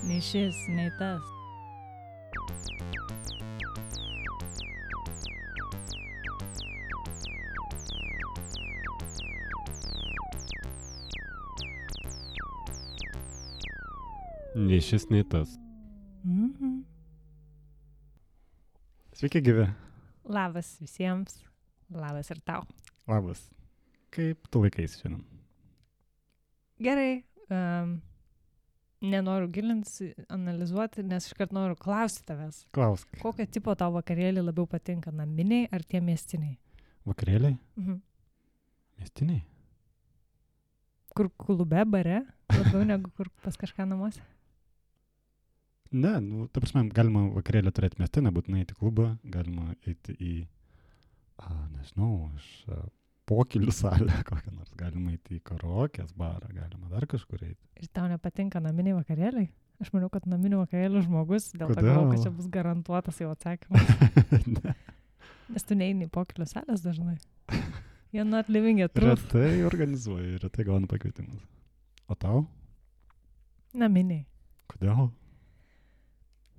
Nei šis, nei tas. Nei šis, nei tas. Mhm. Sveiki, gyvi. Labas visiems. Labas ir tau. Labas. Kaip tu laikais šiandien? Gerai. Nenoriu gilintis, analizuoti, nes iškart noriu klausti tavęs. Klausk. Kokio tipo tau vakarėlį labiau patinka, naminiai ar tie miestiniai? Vakarėliai? Mhm. Miestiniai? Kur klube, bare, labiau negu kur pas kažką namuose? Ne, nu, ta prasme, galima vakarėlį turėti mieste, nebūtinai eiti į klubą, galima eiti į, nežinau, pokylių salę kokią nors, galima eiti į karaokės barą, galima dar kažkur eiti. Ir tau nepatinka naminiai vakarėliai? Aš manau, kad naminių vakarėlių žmogus, dėl to Kodėl? galvoju, kad čia bus garantuotas jau atsakymas. Ne. Nes tu neini į pokylių salės dažnai. You're not living a truth. Retai organizuoju, retai gaunu pakvietimus. O tau? Naminiai. Kodėl?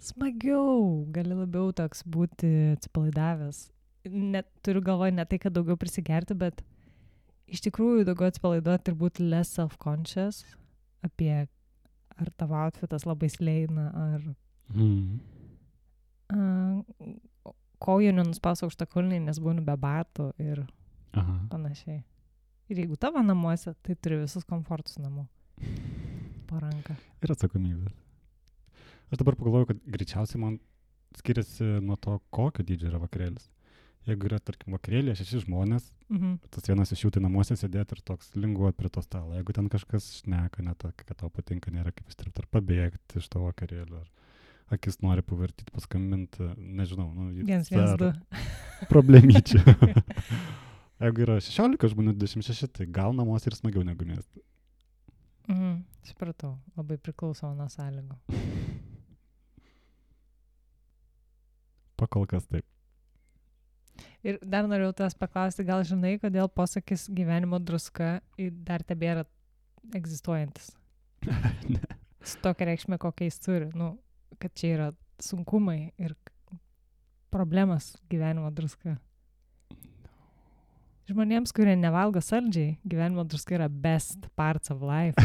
Smagiau, gali labiau toks būti atsipalaidavęs. Net turiu galvoje ne tai, kad daugiau prisigerti, bet iš tikrųjų daugiau atsipalaiduoti ir būti less self-conscious apie ar tavo outfitas labai sleina, ar kojų nenuspausiu aukštakulniai, nes būnu be batų ir panašiai. Ir jeigu tavo namuose, tai turi visus komfortus namų po ranką. Ir atsakomybės. Aš dabar pagalvoju, kad greičiausiai man skiriasi nuo to, kokio dydžio yra vakarėlis. Jeigu yra, tarkim, vakarėlė 6 žmonės, tas vienas iš jų tai namuose sėdėti ir toks linguot prie to stalo. Jeigu ten kažkas šneka, ne to, kad tau patinka, nėra kaip įstripti ar pabėgti iš to vakarėlio, ar akis nori pavartyti, paskambinti, nežinau. 112. Problemyčių. Jeigu yra 16 žmonių, 26, tai gal namuose ir smagiau negu mieste. Supratau, labai priklauso nuo sąlygų. Pakol kas taip. Ir dar norėjau tavęs paklausti, gal žinai, kodėl posakis gyvenimo druska dar tebėra egzistuojantis? Ne. Su tokia reikšmė, kokia jis turi. Kad čia yra sunkumai ir problemas gyvenimo druska. Žmonėms, kurie nevalgo saldžiai, gyvenimo druska yra best parts of life.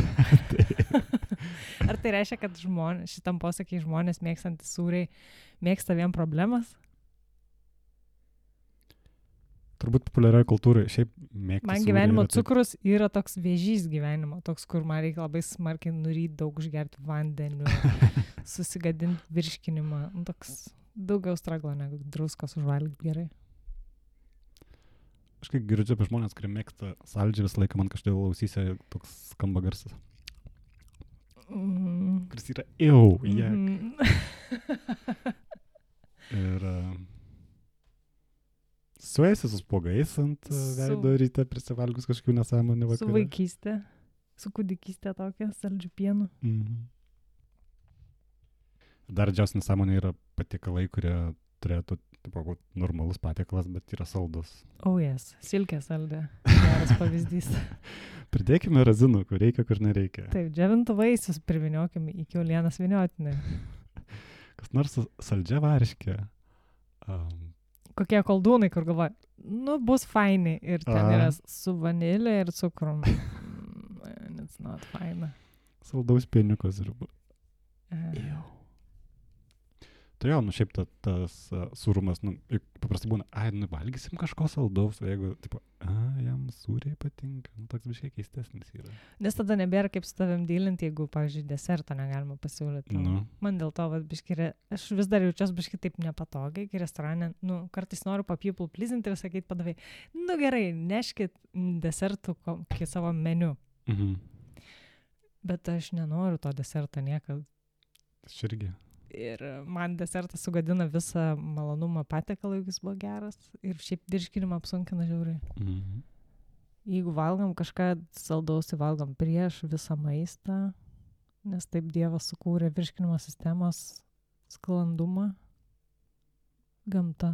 Ar tai reiškia, kad šitam posakiai žmonės mėgstantys sūriai mėgsta vien problemas? Turbūt populiarioje kultūroje šiaip mėgti. Man gyvenimo cukrus yra toks vėžys gyvenimo, toks, kur man reikia labai smarkiai nuryti, daug užgerti vandeniu, susigadinti virškinimą. Toks daugiau straglo negu druskos užvalgyti gerai. Aš kai girdžiu apie žmonės, kurie mėgsta saldžiai, visą laiką man kažkodėl ausyse toks skamba garsas. Kuris yra Ir suėsi su spuogais ant veido ryte prisivalgus kažkokių nesąmonių vakarą. Su vaikystė, su kūdikystė tokia, saldžių pienų. Dar didžiausia nesąmonė yra patiekalai, kurie turėtų būti normalus patiekalas, bet yra saldus. Yes, silkė saldė. Geras pavyzdys. Pridėkime razinų, kur reikia, kur nereikia. Taip, džiovintų vaisius priviniokime į kiaulienos vyniotinį. Kas nors saldžia varškė. Kokie koldūnai, kur galvoja, bus faini. Ir ten yra su vanilė ir cukrum. It's not fine. Saldaus pieniukos ir... Tai jau, šiaip tas sūrumas, paprastai būna, valgysim kažko saldaus, o jeigu, jam sūriai patinka, toks biškiai keistesnis yra. Nes tada nebėra kaip su tavim dylinti, jeigu, pavyzdžiui, desertą negalima pasiūlyti. Man dėl to, biškiai, aš vis dar jaučiuosi biškiai taip nepatogiai, kai restorane, kartais noriu people pleasinti ir sakyti padavai, gerai, neškit desertų kokį savo meniu. Bet aš nenoriu to deserto niekad. Aš irgi. Ir man desertas sugadina visą malonumą patiekalą, jeigu jis buvo geras. Ir šiaip virškinimą apsunkina žiauriai. Jeigu valgom kažką saldaus, tai valgom prieš visą maistą, nes taip Dievas sukūrė virškinimo sistemos sklandumą. Gamta,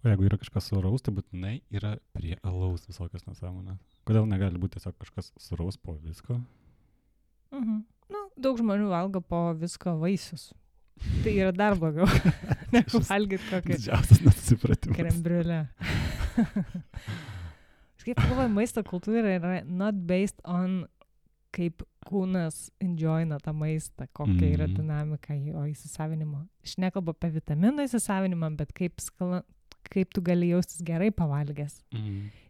O jeigu yra kažkas suraus, tai būtinai yra prie alaus visokios nesąmonės. Kodėl negali būti tiesiog kažkas suraus po visko? Nu, daug žmonių valgo po visko vaisius. Tai yra dar blogiau, negu valgyti kokį Didžiausias nesusipratimas. krembriulę. Kaip galvoju, maisto kultūra yra not based on kaip kūnas enjoyina tą maistą, kokia yra dinamika jo įsisavinimo. Aš nekalbu apie vitaminų įsisavinimą, bet kaip tu gali jaustis gerai pavalgęs.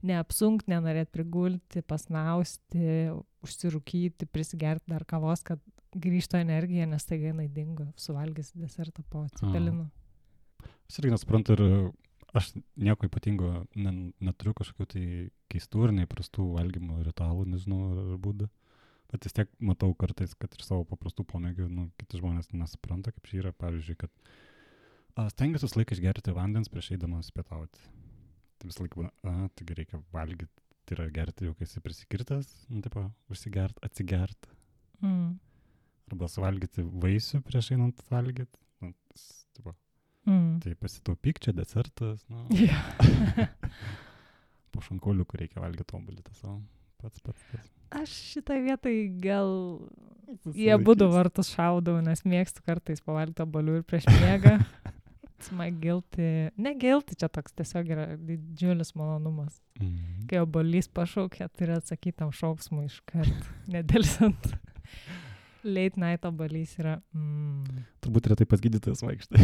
Neapsunkt, nenorėt prigulti, pasnausti, užsirūkyti, prisigerti dar kavos, kad grįžto energija, nes tai jinai dingo, suvalgęs desertą po cepelinų. Aš irgi nesuprantu ir aš nieko ypatingo neturiu kažkokių tai keistų ir neįprastų valgymo ritualų, nežinau, ar būdų. Bet vis tiek matau kartais, kad ir savo paprastų pomėgių, kiti žmonės nesupranta, kaip čia yra, pavyzdžiui, kad stengiuosi visą laiką išgerti vandens prieš eidamas pietauti. Tai visą laiką būna, taigi reikia valgyti, tai yra gerti jau, kai esi prisikirtas, taip, užsigert, atsigert. Arba suvalgyti vaisių prieš einant valgyti. Tai pasitaupyk, čia desertas. Po šankoliukų reikia valgyti obuolį savo. Pats. Aš šitą vietą gal jie būdų vartus šaudau, nes mėgstu kartais pavalgyti obuolių ir prieš miegą. Ne guilty, čia toks tiesiog yra didžiulis malonumas. Kai obuolys pašaukia, turi atsakyti tam šauksmui iškart, nedelsant. Late night obuolys yra... Turbūt retai pas gydytojas vaikštai.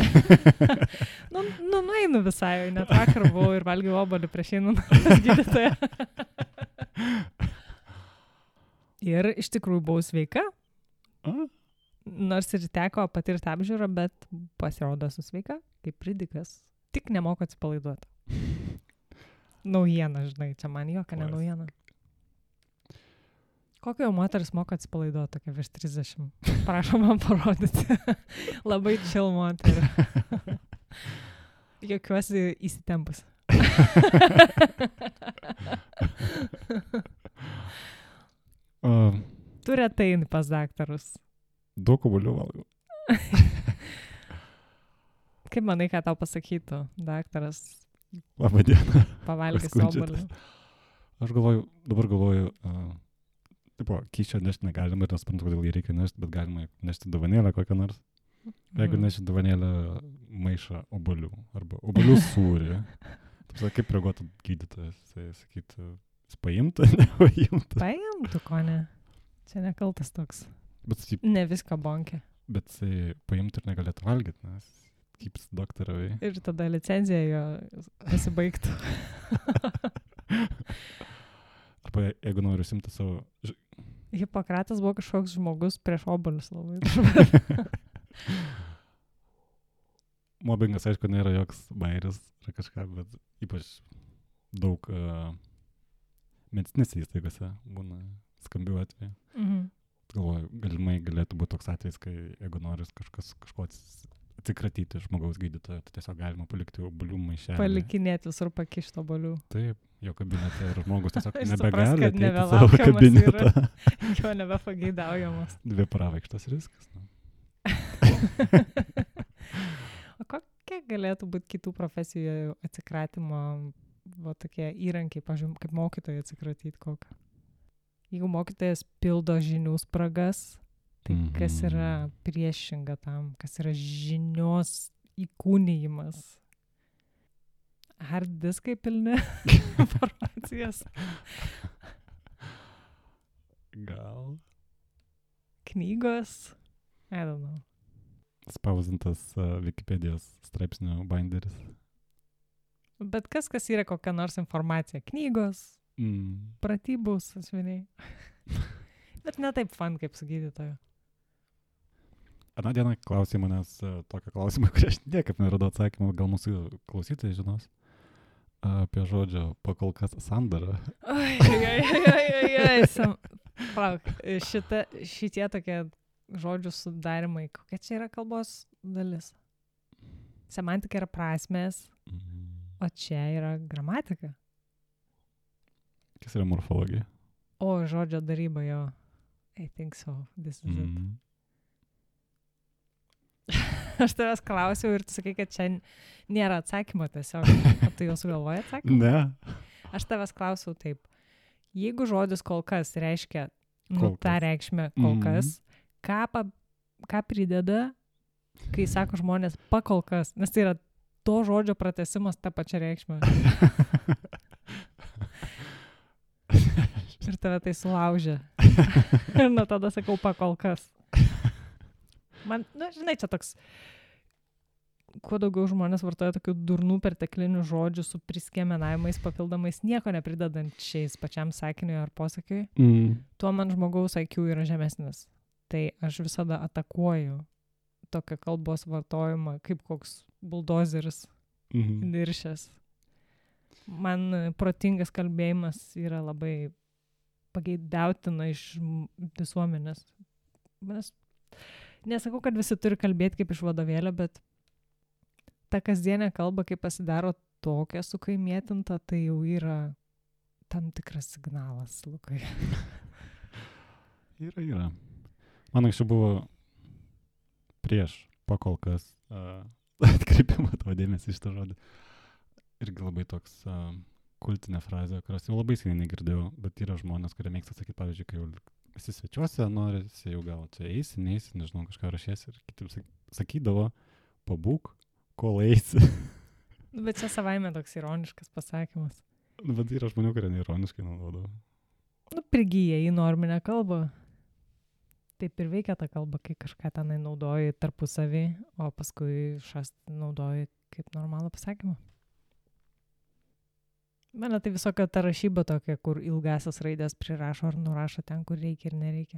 Nueinu visai, net vakar buvau ir valgiau obuolį prieš einant pas gydytoją. Ir iš tikrųjų buvau sveika. Nors ir teko patirti apžiūrą, bet pasirodo esu sveika, kaip pridikas. Tik nemoku atsipalaiduoti. Naujiena, žinai, čia man jokia ne naujiena. Kokio jau moteris moka atsipalaiduoti, tokia virš 30. Prašom man parodyti. Labai chill moterį. Jokiuosi įsitempus. Tu retai eini pas daktarus. Daug obuolių valgau. Kaip manai, ką tau pasakytų daktaras? Labą dieną. Pavalgęs obuolių. Aš dabar galvoju, kyšio nešti negalima ir nesuprantu, kodėl jį reikia nešti, bet galima nešti dovanėlę kokią nors. Jeigu neši dovanėlę maišą obuolių arba obuolių sūrį, kaip reaguotų gydytojas, jisai sakytų, jis paimtų, nepaimtų. Paimtų, ko ne. Čia nekaltas toks. Ne viską bonkė. Bet jisai paimtų ir negalėtų valgyti, nes kyps doktoravai. Ir tada licenzija jo pasibaigtų. Arba jeigu noriu simti savo... Hipokratas buvo kažkoks žmogus prieš obuolius labai. Mobbingas, aišku, nėra joks bairis ar kažką, bet ypač daug medicinėse įstaigose būna skambių atvejų. Galvoju, galimai galėtų būti toks atvejis, kai jeigu nori kažko atsikratyti žmogaus gydytojo, tai tiesiog galima palikti obuolių maišelį. Palikinėti visur pakišti obuolių. Taip, jo kabinete ir žmogus tiesiog nebegali ateiti savo kabinetą. Jo nebepageidaujamas. 2 pravaikštas riskas. O kokie galėtų būti kitų profesijų atsikratimo tokie įrankiai, pažiūrėjau, kaip mokytojai atsikratyti kokią? Jeigu mokytojas pildo žinių spragas, tai kas yra priešinga tam, kas yra žinios įkūnijimas? Hard diskai pilni informacijos? Gal. Knygos? I don't know. Spausdintas Wikipedijos straipsnio binderis. Bet kas yra kokia nors informacija? Knygos, pratybų sąsviniai. Bet ne taip fun, kaip su gydytoju. Aną dieną klausė manęs tokio klausimą, kurį aš niekaip neradau atsakymą, gal mūsų klausytojai žinos, apie žodžio pakolkas sandarą. Palauk, šitie tokie žodžių sudarimai, kokia čia yra kalbos dalis? Semantika yra prasmės, o čia yra gramatika. Kas yra morfologija? O, žodžio daryba, jo. I think so. This is it. Aš tavęs klausiau ir tu sakai, kad čia nėra atsakymo tiesiog. O tu jau sugalvoji atsakymą? Ne. Aš tavęs klausiau taip. Jeigu žodis kol kas reiškia tą reikšmę kol kas, ką prideda, kai sako žmonės pakol kas? Nes tai yra to žodžio pratęsimas tą pačią reikšmę. Ir tave tai sulaužė. Ir nuo tada sakau pakol kas. Man, žinai, čia toks, kuo daugiau žmonės vartoja tokių durnų perteklinių žodžių su priskiemenavimais, papildomais, nieko nepridedančiais pačiam sakiniui ar posakiui, tuo man žmogaus IQ yra žemesnis. Tai aš visada atakuoju tokią kalbos vartojimą, kaip koks buldozeris niršęs. Man protingas kalbėjimas yra labai pageidautina iš visuomenės. Nesakau, kad visi turi kalbėti kaip iš vadovėlio, bet ta kasdienė kalba, kai pasidaro tokia sukaimėtinta, tai jau yra tam tikras signalas, Lukai. Yra. Man anksčiau buvo prieš pakol kas atkreipimą tavo dėmesį iš tą žodį. Irgi labai toks kultinė frazė, kurios jau labai seniai negirdėjau, bet yra žmonės, kurie mėgsta sakyti, pavyzdžiui, kai jau esi svečiuose, norisi jau gal čia eisi, neisi, nežinau, kažką rašėsi ir kiti sakydavo, pabūk, kol eisi. Bet čia savaime toks ironiškas pasakymas. Bet yra žmonių, kurie neironiškai naudodavo. Prigyja į norminę kalbą. Taip ir veikia ta kalba, kai kažką tenai naudoji tarpusavį, o paskui naudoji kaip normalų pasakymą. Mane tai visokio ta rašyba tokia, kur ilgasias raidės prirašo ar nurašo ten, kur reikia ir nereikia.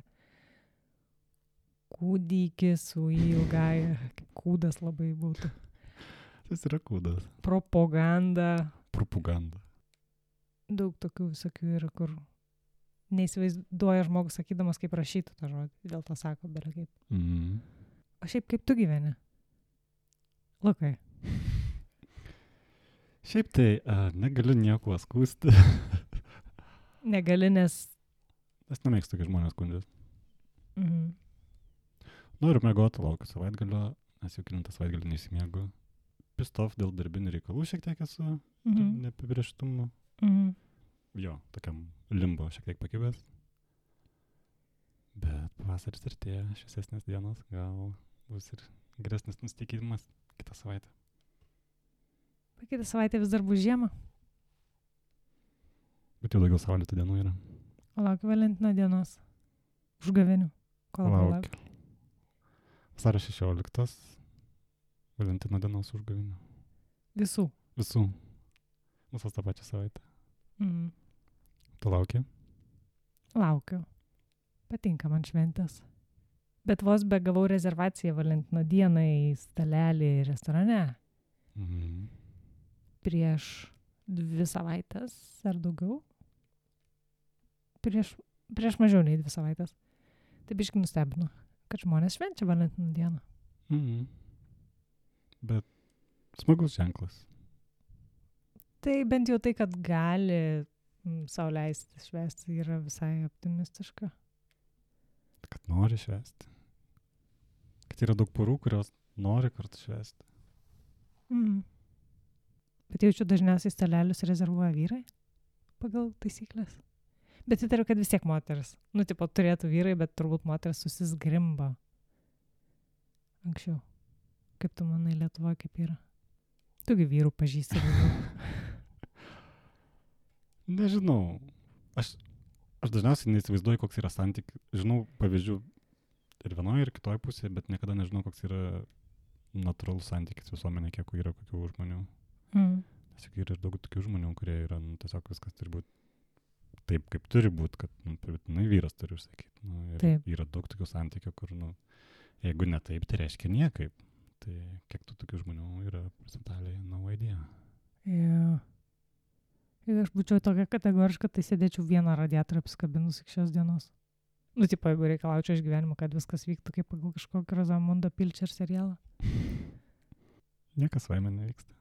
Kūdikis su ilgaja, kaip kūdas labai būtų. Tas yra kūdas. Propaganda. Daug tokių visokių yra, kur neįsivaizduoja žmogus sakydamas, kaip rašytų tą žodį. Dėl to sako, bele kaip. O šiaip kaip tu gyveni? Lukai. Šiaip tai negaliu nieko skųsti. Negali, nes... Aš nemėgstu, kai žmonės skundžias. Noriu mėgoti laukiu savaitgalio, nes jau kilintą savaitgalį neįsimiegu. Pistof dėl darbinių reikalų šiek tiek esu, neapibrėžtumo. Jo, tokiam limbo šiek tiek pakibęs. Bet pavasaris artėja, šviesesnės dienos, gal bus ir geresnis nusiteikimas kitą savaitę. Kitą savaitę vis dar bus žiema. Bet jau daugiau saulėtų dienų yra. Laukiu Valentino dienos. Užgavėnių. Laukiu. Vasario 16. Valentino dienos užgavėnių. Visų. Visos tą pačią savaitę. Tu lauki? Laukiu. Patinka man šventės. Bet vos begavau rezervaciją Valentino dieną į stalelį restorane. Prieš 2 savaitės ar daugiau. Prieš mažiau nei 2 savaitės. Tai biškai nustebino, kad žmonės švenčia Valentino dieną. Bet smagus ženklas. Tai bent jau tai, kad gali sau leisti švęsti, yra visai optimistiška. Kad nori švęsti. Kad yra daug porų, kurios nori kartu švęsti. Bet jaučiu dažniausiai stalelius rezervuoja vyrai pagal taisyklės. Bet įtariu, kad vis tiek moteris. Turėtų vyrai, bet turbūt moteris susizgrimba. Anksčiau. Kaip tu manai, Lietuvoje kaip yra? Tugi vyrų pažįsti. Nežinau. Aš dažniausiai neįsivaizduoju, koks yra santykis. Žinau pavyzdžių ir vienoje, ir kitoje pusėje, bet niekada nežinau, koks yra natūralus santykis visuomenė, kiek yra kokių žmonių. Tiesiog yra ir daug tokių žmonių, kurie yra, tiesiog viskas turi būti taip, kaip turi būti, kad vyras turi užsakyti. Yra daug tokių santykių, kur, jeigu ne taip, tai reiškia niekaip. Tai kiek tokių žmonių yra procentaliai, no idea. Jeigu aš būčiau tokia kategoriška, tai sėdėčiau vieną radiatorių apsikabinus iki šios dienos. Jeigu reikalaučiau iš gyvenimo, kad viskas vyktų kaip pagal kažkokį Rozamundo Pilcher serialą. Niekas vaime nevyksta.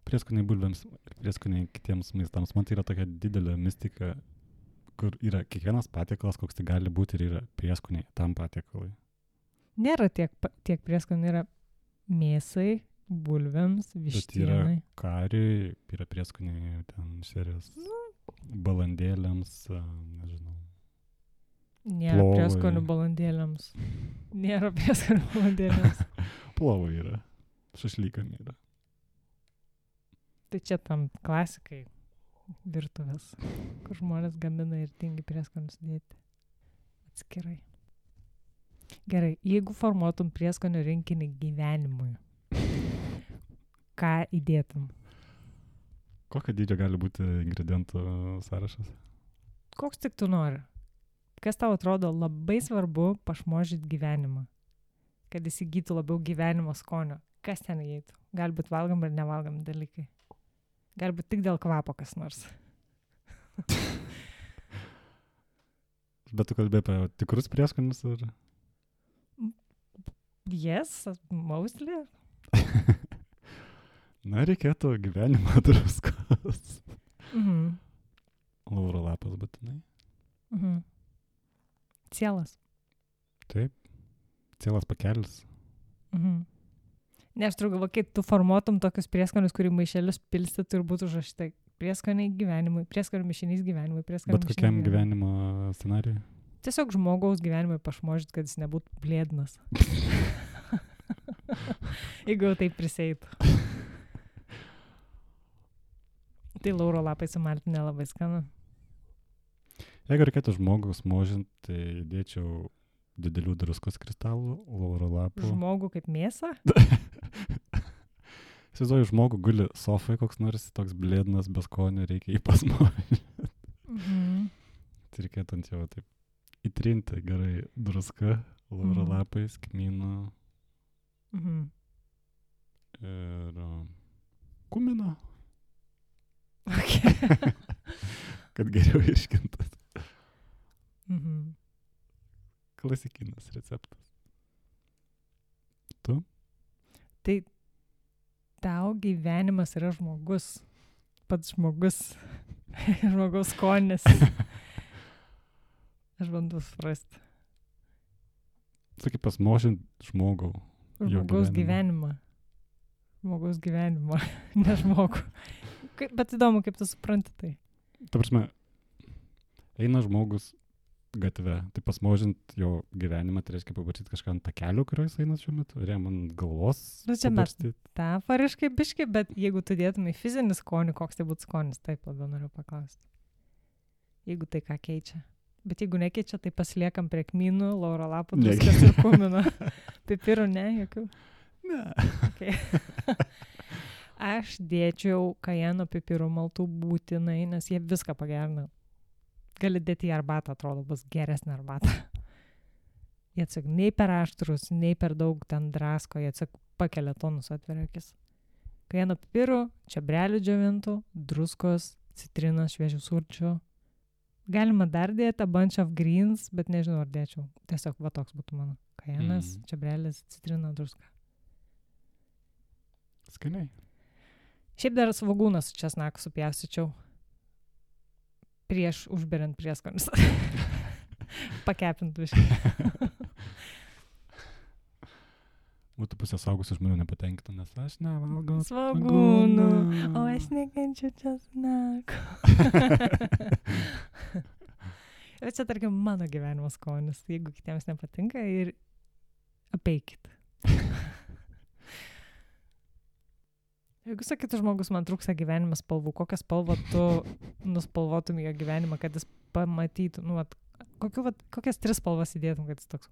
Prieskoniai bulvėms ir prieskoniai kitiems maistams. Man tai yra tokia didelė mistika, kur yra kiekvienas patiekalas, koks tai gali būti ir yra prieskoniai tam patiekalui. Nėra tiek prieskonių, yra Mėsai, bulvėms, vištienai. Bet yra kariui, yra prieskoniai ten šerės balandėliams, nežinau. Nėra prieskonių balandėliams. Nėra prieskonių balandėliams. Plovai yra. Šašlykam yra. Tai čia tam klasikai virtuvės, kur žmonės gamina ir tingi prieskonius dėti atskirai. Gerai, jeigu formuotum prieskonių rinkinį gyvenimui, ką įdėtum? Kokio dydžio gali būti ingredientų sąrašas? Koks tik tu nori. Kas tau atrodo labai svarbu pašmožyti gyvenimą, kad įsigytų labiau gyvenimo skonio? Kas ten įeitų? Galbūt valgom ir nevalgom dalykai. Galbūt tik dėl kvapo kas nors. Bet tu kalbėjai apie tikrus prieskonius ar? Yes, mostly. Na, reikėtų gyvenimo druskos. Lauro lapas būtinai. Cielas. Taip. Cielas pakelis. Ne, aš turiu galvo, kai tu formuotum tokius prieskonius, kurį maišelius pilstytų ir būtų užrašyta prieskoniai gyvenimui, prieskonių mišinys gyvenimui, prieskonių mišinys. Bet kokiam gyvenimo scenarijui? Tiesiog žmogaus gyvenimui pašmožit, kad jis nebūtų blėdnas. Jeigu jau taip priseitų. Tai lauro lapai su maltine labai skanu. Jeigu reikėtų žmogus možint, tai dėčiau didelių druskos kristalų, lauro lapų. Žmogų kaip mėsą? Įsivaizduoju, žmogų guli sofai koks nors, toks blėdnas, be skonio, reikia jį pasmožinti. Tai reikėtų ant jo taip įtrinti gerai druską, lauro lapais, kmyną ir kumino. Okay. Kad geriau iškintas. Klasikinis receptas. Tu? Tai tau gyvenimas yra žmogus. Pats žmogus. Žmogaus skonis. Aš bandau suprasti. Sakai, pasmožint žmogau. Žmogaus gyvenimą. Žmogaus gyvenimą. Ne žmogų. Bet įdomu, kaip tu supranti tai. Ta prasme, eina žmogus gatve, tai pasmožint jo gyvenimą, tai reiškia pabarstyti kažką ant takelio, kurio jis eina šiuo metu, ar jam ant galvos. Nu, čia metaforiškai biški, bet jeigu tu dėtum į fizinį skonį, koks tai būtų skonis, taip labiau noriu paklausti. Jeigu tai ką keičia. Bet jeigu nekeičia, tai pasiliekam prie kmynų, lauro lapų, druskas ir kumino. Pipirų, ne, jokių? Ne. Okay. Aš dėčiau kajeno pipirų maltų būtinai, nes jie viską pagerina. Gali dėti į arbatą, atrodo, bus geresnė arbata. Jie tiesiog nei per aštrus, nei per daug ten drasko, jie tiesiog pakelia tonus, atveria akis. Kajeno pipirų, čiobrelių džiovintų, druskos, citrinos, šviežių sulčių. Galima dar dėti a bunch of greens, bet nežinau, ar dėčiau. Tiesiog va toks būtų mano. Kajenas, čiobrelis, citrina, druska. Skaniai. Šiaip dar svogūną su česnaku supjaustyčiau prieš užberiant prieskonius. Pakepint viškai. Būtų pusė saugusių žmonių nepatenkinta, nes aš nevalgau svogūnų, o aš nekenčiu česnaku. Bet čia, tarkim, mano gyvenimo skonis. Jeigu kitiems nepatinka, ir apeikit. Jeigu sakytų žmogus, man trūksta gyvenimo spalvų, kokią spalvą tu nuspalvotum jo gyvenimą, kad jis pamatytų, kokias 3 spalvas įdėtum, kad jis toks,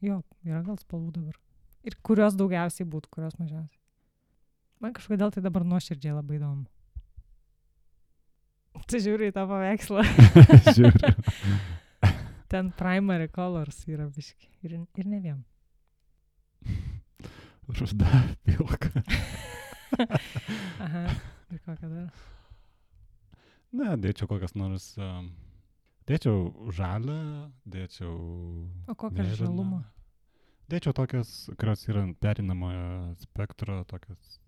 jo, yra gal spalvų dabar. Ir kurios daugiausiai būtų, kurios mažiausiai. Man kažkodėl tai dabar nuoširdžiai labai įdomu. Tu žiūri į tą paveikslą. Žiūriu. Ten primary colors yra biški. Ir ne vien. Ruda, pilka. Aha, ir kokią dar? Ne, dėčiau kokias nors, dėčiau žalę, dėčiau O kokią žalumą? Dėčiau tokias, kurios yra perinamojo spektro, tokias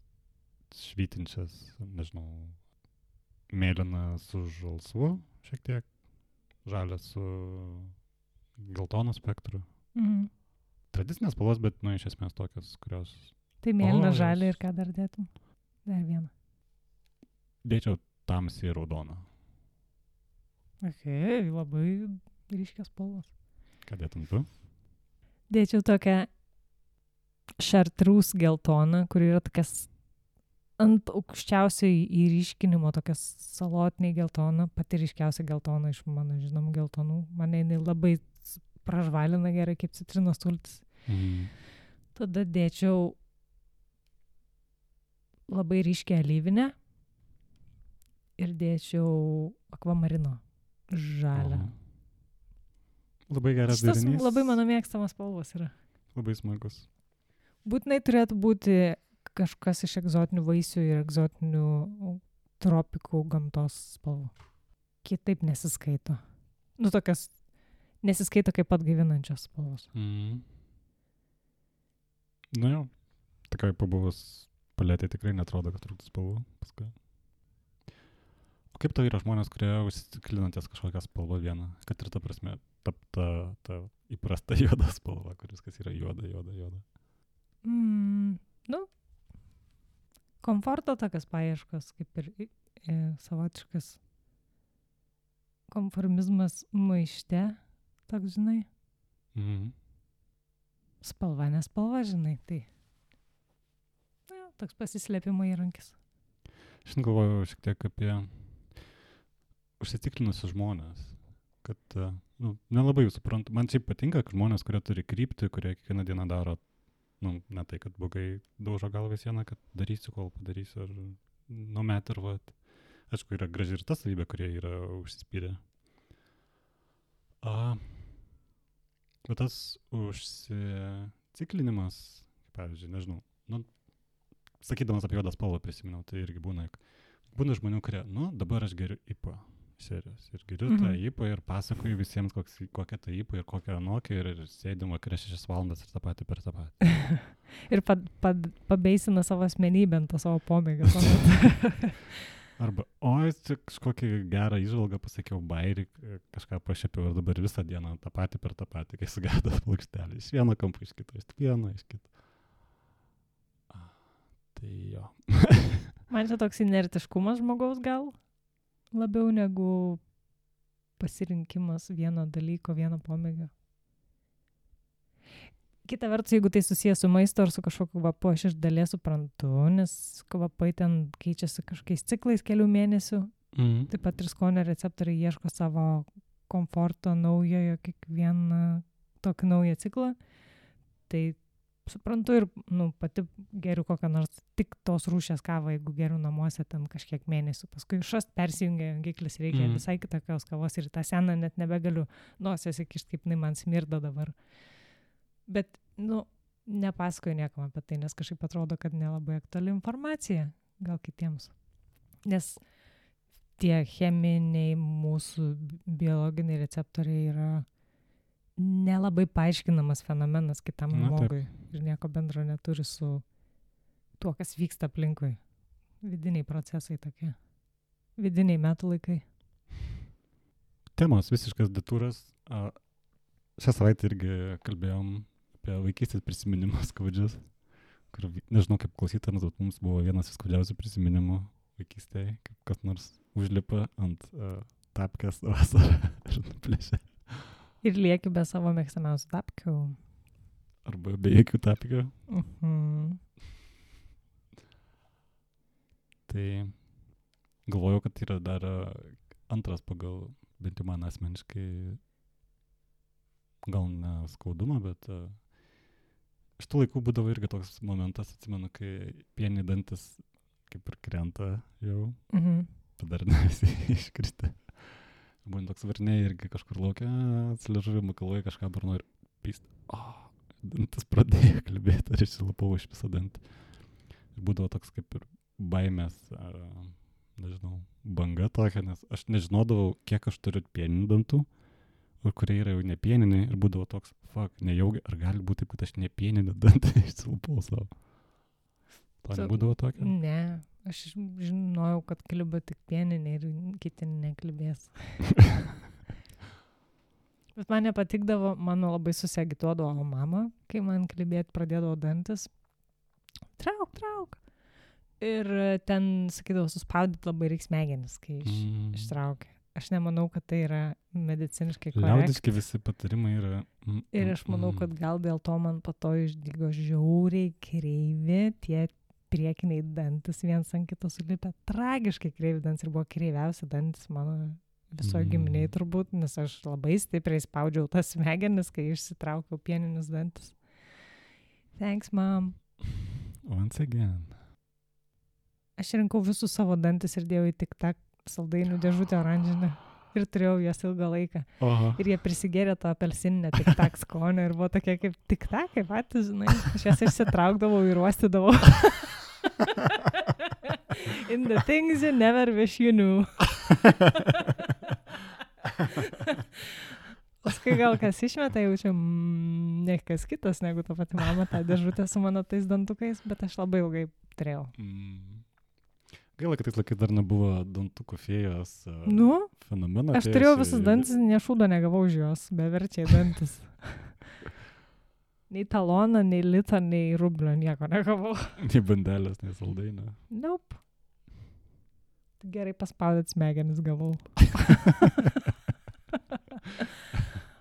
švytinčias, nežinau, mėlyna su žalsvu šiek tiek, žalia su geltono spektru. Tradicinės spalvos, bet, iš esmės tokias, kurios Tai mėlyna, žalia ir ką dar dėtum? Dar vieną. Dėčiau tamsiai raudoną. Labai ryškios spalvos. Ką dėtum tu? Dėčiau tokią šartrūs geltoną, kur yra tokias ant aukščiausio įryškinimo, tokias salotiniai geltona, pati ryškiausia geltona iš mano žinomų geltonų. Mane jinai labai pražvalina gerai kaip citrinos sultis. Tada dėčiau labai ryškę alyvinę ir dėčiau akvamarino žalią. Labai geras derinys. Šitas labai mano mėgstamas spalvos yra. Labai smagus. Būtinai turėtų būti kažkas iš egzotinių vaisių ir egzotinių tropikų gamtos spalvų. Kitaip nesiskaito. Tokias nesiskaito kaip atgaivinančios spalvos. Jo, tokiai pabuvus paletė tikrai netrodo, kad trūktų spalvų paskui. O kaip tau yra žmonės, kurie užsiciklina ties kažkokią spalvą vieną, kad ir ta prasme, ta įprasta juoda spalva, kuris kas yra juoda. Komforto tokias paieškos, kaip ir savotiškas konformizmas maište, toks, žinai. Spalva, nespalva, žinai, tai toks pasislėpimo įrankis. Šiandien galvoju šiek tiek apie užsiciklinusius žmonės, kad nelabai jų suprantu. Man šiaip patinka, kad žmonės, kurie turi kryptį, kurie kiekvieną dieną daro, ne tai, kad blogai daužo galvą sieną, kad darysiu, kol padarysiu, ar numet ir vat. Aišku, yra graži ir ta savybė, kurie yra užsispyrę. Bet tas užsiciklinimas, pavyzdžiui, nežinau, sakydamas apie juodą spalvą prisiminiau, tai irgi būna žmonių, kurie, dabar aš geriu IPA serijos ir geriu tą IPA ir pasakoju visiems, kokia ta IPA ir kokia anokia ir sėdim vakare 6 valandas ir tą patį per tą patį. Ir pabeisina savo asmenybę ant savo pomėgio. Arba, čia kažkokį gerą įžvalgą pasakiau, bairį, kažką pašėpiau ir dabar visą dieną tą patį per tą patį, kai sugedas plokštelį. Iš vieno kampo, iš kito, iš vieno, iš kito. Tai jo. Man čia toks inertiškumas žmogaus gal labiau negu pasirinkimas vieno dalyko, vieno pomėgio. Kita vertus, jeigu tai susijęs su maisto ar su kažkokiu kvapu, aš iš dalies suprantu, nes kvapai ten keičiasi kažkokiais ciklais kelių mėnesių. Taip pat ir skonio receptoriai ieško savo komforto naujojo kiekvieną tokį naują ciklą. Tai suprantu ir pati geriu kokią nors tik tos rūšies kavą, jeigu geriu namuose ten kažkiek mėnesių. Paskui šast persijungia jungiklis, reikia visai kitokios kavos ir tą seną net nebegaliu nosies įkišti, kaip man smirda dabar. Bet, nepasakoju niekam apie tai, nes kažkaip atrodo, kad nelabai aktuali informacija gal kitiems. Nes tie cheminiai mūsų biologiniai receptoriai yra nelabai paaiškinamas fenomenas kitam žmogui ir nieko bendro neturi su tuo, kas vyksta aplinkui. Vidiniai procesai tokie. Vidiniai metų laikai. Temos visiškas detūras. Šią savaitę irgi kalbėjom apie vaikystės prisiminimus skaudžius, kur nežinau kaip klausytams, bet mums buvo vienas iš skaudžiausių prisiminimų vaikystėje, kaip kas nors užlipa ant tapkės vasarą ir nuplėšia. Ir lieki be savo mėgstamiausių tapkių. Arba be jokių tapkių. Tai galvojau, kad yra dar antras pagal, bent jau man asmeniškai, gal ne skaudumą, bet iš tų laikų būdavo irgi toks momentas, atsimenu, kai pieniai dantis kaip ir krenta jau, dar ne visi iškristė. Būtent toks varniai irgi kažkur laukia, atsiližuvimą kalvoje kažką burno ir pyst. Dantis pradėjo kalbėti, ar išsilapau iš visą dantį. Ir būdavo toks kaip ir baimės, nežinau, banga tokia, nes aš nežinodavau, kiek aš turiu pieninių dantų, ir kurie yra jau nepieniniai, ir būdavo toks, nejaugi, ar gali būti taip, kad aš nepieninį dantį išsilapau savo. To nebūdavo tokia? Ne. Aš žinojau, kad kliba tik pieniniai ir kiti neklibės. Bet man nepatikdavo, mano labai susiagituodavo mama, kai man klibėti pradėdavo dantis. trauk. Ir ten, sakydavo, suspaudyti labai reiks smegenis, kai ištraukia. Aš nemanau, kad tai yra mediciniškai korektiška. Liaudiški visi patarimai yra. Ir aš manau, kad gal dėl to man po to išdygo žiauriai kreivi tie priekiniai dantis, viens ant kito sulipę. Tragiškai kreivi dantis ir buvo kreiviausia dantis mano visoje giminiai turbūt, nes aš labai stipriai spaudžiau tas smegenis, kai išsitraukiau pieninius dantis. Thanks, mom. Once again. Aš rinkau visus savo dantis ir dėjau į tik-tak saldainių dėžutę oranžinę ir turėjau jas ilgą laiką. Oho. Ir jie prisigėrė to apelsininę tik-tak skonio ir buvo tokie kaip tik-tak, kaip patys, žinai. Aš jas išsitraukdavau ir uostydavau. In the things you never wish you knew. Paskui gal kas išmeta, jaučiu, ne kas kitas negu ta pati mama, tą dėžutę su mano tais dantukais, bet aš labai ilgai turėjau. Gaila, kad tais laikais dar nebuvo dantukų fėjos fenomeno. Aš turėjau visus dantis, nešūdo negavau už juos, beverčiai dantis. Nei taloną, nei litą, nei rublio, nieko negavau. Nei bandelės, nei saldainio. Nope. Gerai paspaudėt smegenis gavau.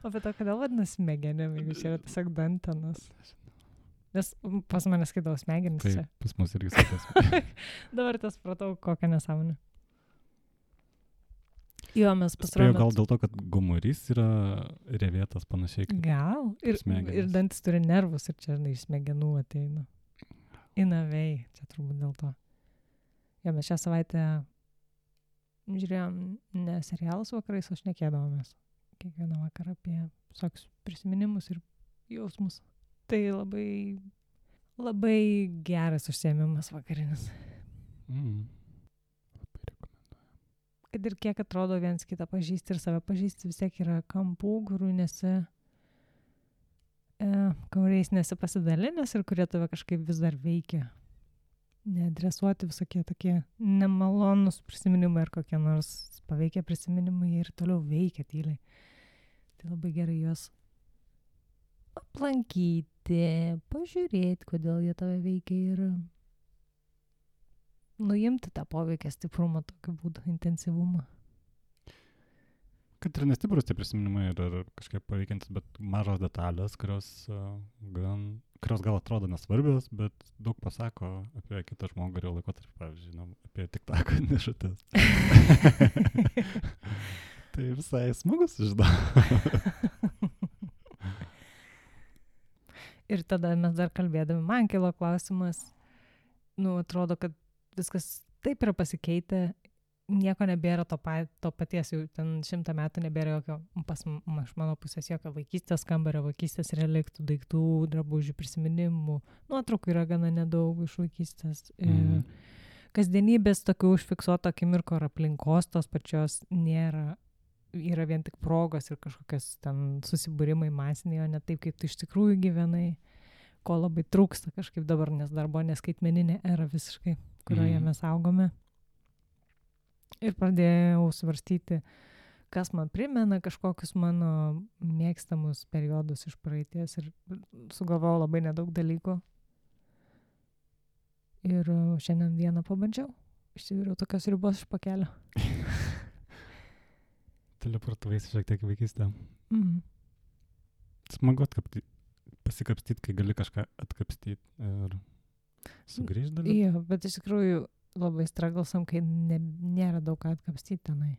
O bet to, kodėl vadinasi smegenim, jeigu čia yra tiesiog dantenas? Nes pas mane skaitau smegenis čia. Taip, pas mus irgi skaitau. Dabar tas pratau, kokią nesąmonę. Jo, mes pasirodėm. Gal dėl to, kad gomurys yra revėtas panašiai kaip gal. Ir dantis turi nervus ir čia iš smegenų ateina. Inavei, čia turbūt dėl to. Jo, mes šią savaitę žiūrėjom ne serialus vakarais, o šnekėdavomės. Kiekvieną vakarą apie visokius prisiminimus ir jausmus. Tai labai geras užsiėmimas vakarinis. Labai rekomenduoju. Kad ir kiek atrodo viens kitą pažįsti ir save pažįsti, vis tiek yra kampų, kuriais nesi pasidalinęs ir kurie tave kažkaip vis dar veikia. Neadresuoti visokie tokie nemalonus prisiminimai ar kokie nors paveikia prisiminimai ir toliau veikia tyliai. Tai labai gerai juos aplankyti, pažiūrėti, kodėl jie tave veikia ir nuimti tą poveikį stiprumą, tokiu būdu, intensyvumą. Kad ir nestiprus tie prisiminimai yra kažkaip paveikiantis, bet mažos detalės, kurios gal atrodo nesvarbios, bet daug pasako apie kitą žmogų ir jo laikotarpį, pavyzdžiui, apie tik-tak dėžutes. Tai visai smagus žinau. Ir tada mes dar kalbėdami, man kilo klausimas, atrodo, kad viskas taip yra pasikeitę, nieko nebėra to paties, jau ten 100 metų nebėra jokio, iš mano pusės jokio vaikystės kambario, vaikystės reliktų, daiktų, drabužių, prisiminimų, nuotraukų yra gana nedaug iš vaikystės. Kasdienybės tokių užfiksuoto akimirko ar aplinkos tos pačios nėra. Yra vien tik progos ir kažkokios ten susibūrimai masiniai, o ne taip, kaip tu iš tikrųjų gyvenai, ko labai trūksta kažkaip dabar, nes dar buvo neskaitmeninė era visiškai, kurioje mes augome. Ir pradėjau svarstyti, kas man primena kažkokius mano mėgstamus periodus iš praeities ir sugalvojau labai nedaug dalykų. Ir šiandien vieną pabandžiau. Išsiviriau tokios ribos iš pakelio. Teleportuojasi šiek tiek vaikystę. Smagu pasikapstyti, kai gali kažką atkapstyti ir sugrįžti dalyką. Jo, bet iš tikrųjų labai straglsam, kai nėra daug ką atkapstyti tenai.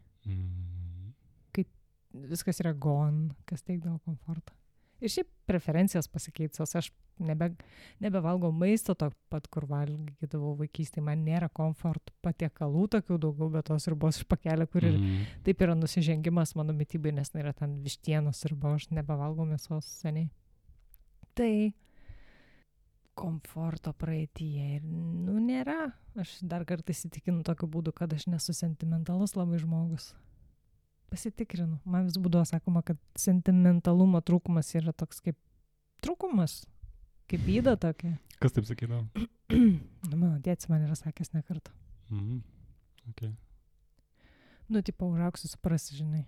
Kai viskas yra gone, kas teikdavo komfortą. Ir šiaip preferencijos pasikeitusios. Aš nebevalgau maisto to pat, kur valgydavau vaikystėje. Man nėra komfortų patiekalų tokių daugiau, bet tos ribos iš pakelio, kur ir taip yra nusižengimas mano mitybai, nes yra ten vištienos riba, aš nebevalgau mėsos seniai. Tai komforto praeityje ir nėra. Aš dar kartą įsitikinu tokiu būdu, kad aš nesu sentimentalus labai žmogus. Pasitikrinu. Man vis būdavo sakoma, kad sentimentalumo trūkumas yra toks kaip trūkumas, kaip yda tokia. Kas taip sakydavo? Mano tėtis man yra sakęs ne kartą. Okay. Tipo, užaugsiu, suprasi, žinai.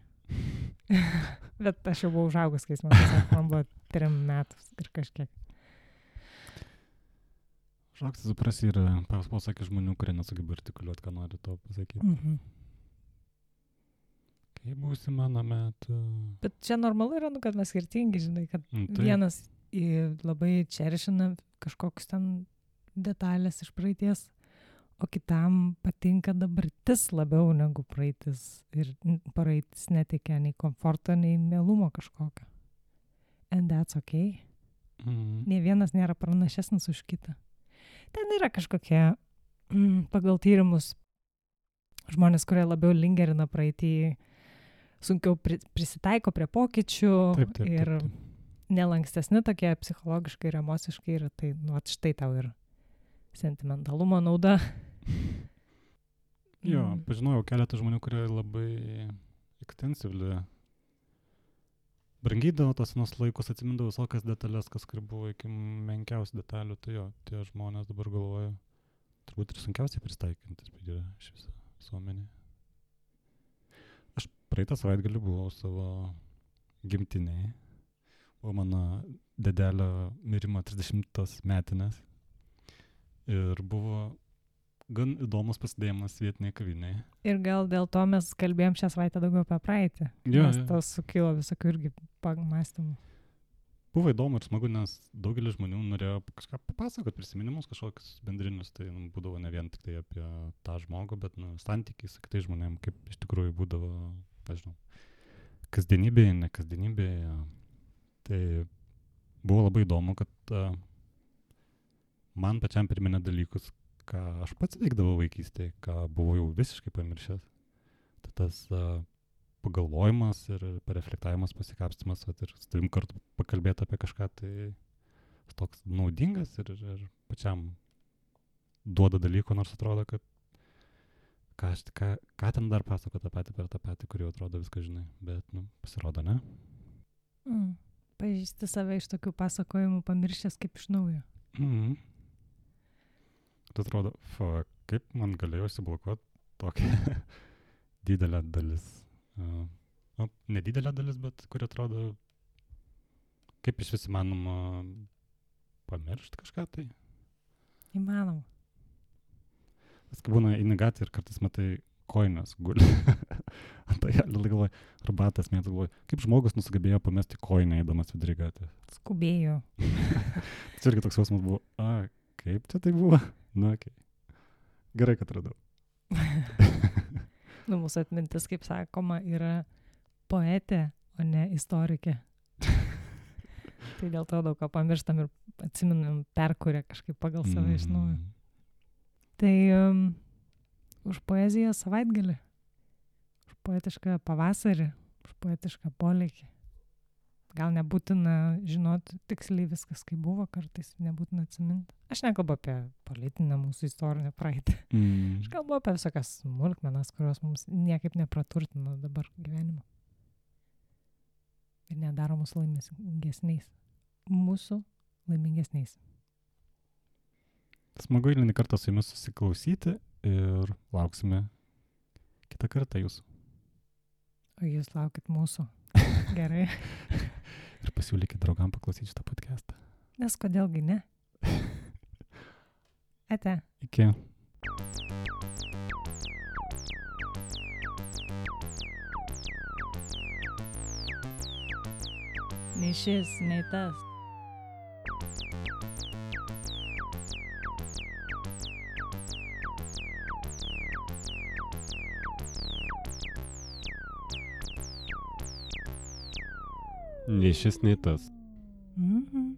Bet aš jau buvau užaugus, kai jis man pasakė, man buvo 3 metus ir kažkiek. Šaukti suprasi yra pasakė žmonių, kurie nesugeba artikuliuoti, ką nori to pasakyti. Kai būsi mano metu. Bet čia normalu yra, kad mes skirtingi, žinai, kad vienas labai čeršina kažkokius ten detalės iš praeities, o kitam patinka dabartis labiau negu praeitis. Ir praeitis neteikia nei komforto, nei mielumo kažkokio. And that's okay. Nei vienas nėra pranašesnis už kitą. Ten yra kažkokie pagal tyrimus žmonės, kurie labiau lingerina praeitį, sunkiau prisitaiko prie pokyčių ir nelankstesni tokie psichologiškai ir emociškai yra, tai štai tau ir sentimentalumo nauda. Jo, pažinojau keletą žmonių, kurie labai ekstensyvli brangydavo tos senus laikus, atsimindavo visokias detalės, kas kur buvo iki menkiausių detalių, tai jo, tie žmonės dabar galvoja, turbūt ir sunkiausiai pristaikintis yra iš viso visuomenė. Aš praeitą savaitgalį buvau savo gimtinėje, buvo mano dedelio mirimo 30 metinės ir buvo gan įdomus pasidėjimas vietiniai kaviniai. Ir gal dėl to mes kalbėjom šią savaitę daugiau apie praeitį, nes tas sukilo visokių irgi pamąstymų. Buvo įdomu ir smagu, nes daugelis žmonių norėjo kažką papasakoti, prisiminimus kažkokius bendrinius, tai būdavo ne vien tik tai apie tą žmogų, bet santykiai su kitais žmonėm, kaip iš tikrųjų būdavo, nežinau, kasdienybėje, ne kasdienybėje. Tai buvo labai įdomu, kad man pačiam priminė dalykus, ką aš pats veikdavau vaikystėje, ką buvau jau visiškai pamiršęs. Tai tas pagalvojimas ir pareflektavimas, pasikapstymas, ir su tavim kartu pakalbėti apie kažką, tai toks naudingas ir pačiam duoda dalyko, nors atrodo, kad ką ten dar pasako tą patį per tą patį, kurį atrodo viską žinai, bet, pasirodo, ne? Pažįsti save iš tokių pasakojimų pamiršęs kaip iš naujo. Tai atrodo, kaip man galėjo įsiblokuoti tokia didelė dalis. Nedidelė dalis, bet kuri atrodo, kaip iš vis įmanoma pamiršti kažką tai. Įmanoma. Vis kai būna eini gatvėje ir kartais matai kojines guli. Tai galvoju, arbatas mėtas galvoju, kaip žmogus nusugebėjo pamesti kojinę eidamas vidury gatvės. Skubėjo. Tai irgi toks jausmas buvo, kaip čia tai buvo? Okay. Gerai, kad radau. Mūsų atmintis, kaip sakoma, yra poetė, o ne istorikė. Tai dėl to daug ką pamirštam ir atsiminam, perkuria kažkaip pagal save iš naujo. Tai už poeziją savaitgalį, už poetišką pavasarį, už poetišką polėkį. Gal nebūtina žinoti tiksliai viskas, kaip buvo, kartais nebūtina atsiminti. Aš nekalbu apie politinę mūsų istorinę praeitį. Aš kalbu apie visokias smulkmenas, kurios mums niekaip nepraturtino dabar gyvenimo. Ir nedaro mūsų laimingesniais. Mūsų laimingesniais. Smagu eilinį kartą su jumis susiklausyti ir lauksime kitą kartą jūsų. O jūs laukit mūsų. Gerai. Ir pasiūlykit draugam paklausyti šitą podcastą. Nes kodėlgi ne? Ate. Iki. Nei šis, nei tas. Nei šis, nei tas. Mhm.